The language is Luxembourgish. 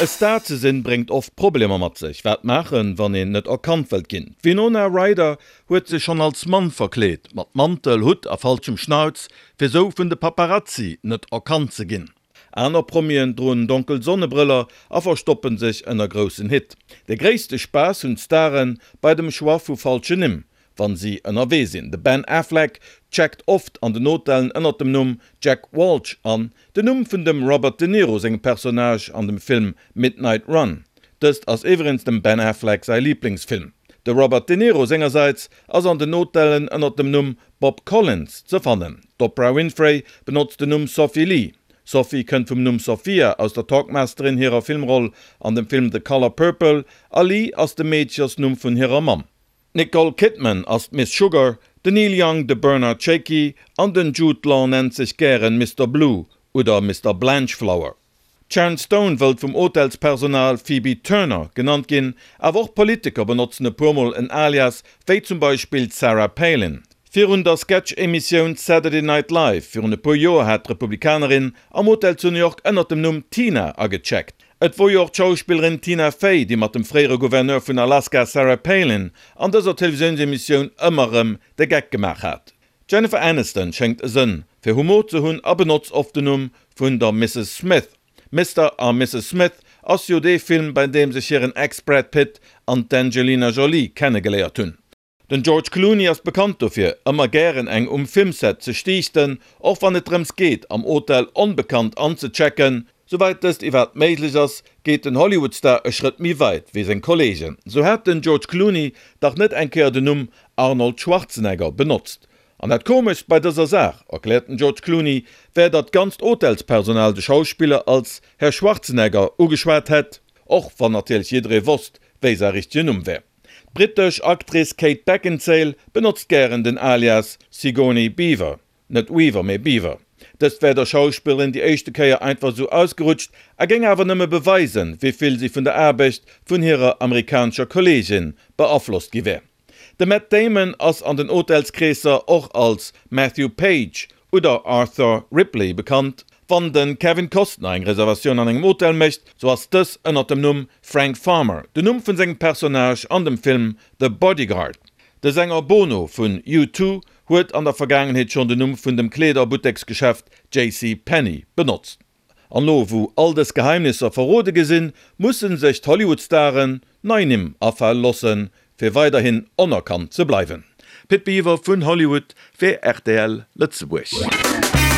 E Star ze sinn, bréngt oft Problemer mat sech. Wat maachen, wann een net erkannt wëllt ginn? D'Winona Ryder huet sech schonn als Mann verkleet, mat Mantel, Hutt a falschem Schnauz, fir sou vun de Paparazzi net erkannt ze ginn. Aner Promien droen donkel Sonnebrëller a verstoppen sech ënner groussen Hitt. De gréisste Spaass hunn d'Stare bei dem Choix vu falschen Nimm, wann si ënnerwee sinn. De Ben Affleck checkt oft an den Hotellen ënnert dem Numm Jack Walsh an, den Numm vun dem Robert De Niro sengem Personnage an dem Film Midnight Run. Dëst ass iwwregens dem Ben Affleck säi Liblingsfilm. De Robert De Niro sengersäits ass an den Hotellen ënnert dem Numm Bob Collins ze fannen. D'Oprah Winfrey benotzt den Numm Sophie Lee. Sophie kënnt vum Numm Sophia aus der Talkmasterin hirer Filmroll an dem Film The Color Purple a Lee ass de Meedchersnumm vun hirer Mamm. D'Nicole Kidman ass d'Miss Sugar, den Neil Young de Bernard Shakey an den Jude Law nennt sech gären Mister Blue oder Mister Blanchflower. D'Sharon Stone wëllt vum Hotelspersonal Phoebe Turner genannt ginn, awer och Politiker benotzen e puer mol en Alias, wéi zum Beispill d'Sarah Palin. Virun der Sketch-Emissioun Saturday Night Live virun e puer Joer hat d'Republikanerin am Hotel zu New York ënnert dem Numm Tina agecheckt. Et wor jo och d'Schauspillerin Tina Fey, déi mat dem fréiere Gouverneur vun Alaska Sarah Palin an dëser Televisiounsemissioun ëmmer erëm de Geck gemaach hat. D'Jennifer Aniston schéngt e Sënn fir Humor ze hunn a benotzt oft den Numm vun der Misses Smith. Mister a Misses Smith ass jo dee Film, bei deem sech hiren Ex Brad Pitt an d'Angelina Jolie kennegeléiert hunn. Den George Clooney ass bekannt dofir, ëmmer gären eng um Filmset ze stiichten, och wann et drëms geet, am Hotel onbekannt anzechecken. Souwäit dëst iwwerhaapt méiglech ass, geet den Hollywood-Star e Schrëtt méi weit wéi seng Kolleegen. Sou hat den George Clooney dach net eng Kéier den Numm Arnold Schwarzenegger benotzt. An dat Komeschst bei dëser Saach, erkläert den George Clooney, wär, datt d'ganzt Hotelspersonal de Schauspiller als Herr Schwarzenegger ugeschwat hätt, och wann natierlech jidderee wosst, wéi säi richtegen Numm wär. D'brittesch Actrice Kate Beckinsale benotzt gären den Alias Sigourney Beaver, net Weaver, mee Beaver. Dëst wär der Schauspillerin déi éischte Kéier einfach esou ausgerutscht a géing awer nëmme beweisen, wéi vill si vun der Aarbecht vun hirer amerikanescher Kolleegin beaflosst gi wär. De Matt Damon ass an den Hotelskreesser och als Matthew Page oder Arthur Ripley bekannt. Wann de Kevin Costner eng Reservatioun an engem Hotel mécht, sou ass dës ënnert dem Numm Frank Farmer, den Numm vun sengem Personnage an dem Film The Bodyguard. De Sänger Bono vun U2 huet an der Vergaangenheet schonn den Numm vun dem Kleederbutteksgeschäft JC Penney benotzt. An lo wou all dës Geheimnisser verrode gi sinn, mussen sech d'Hollywood-Staren nei Nimm afale lossen, fir weiderhin onerkannt ze bleiwen. Pit Biwer vun Hollywood fir rtl Lëtzebuerg.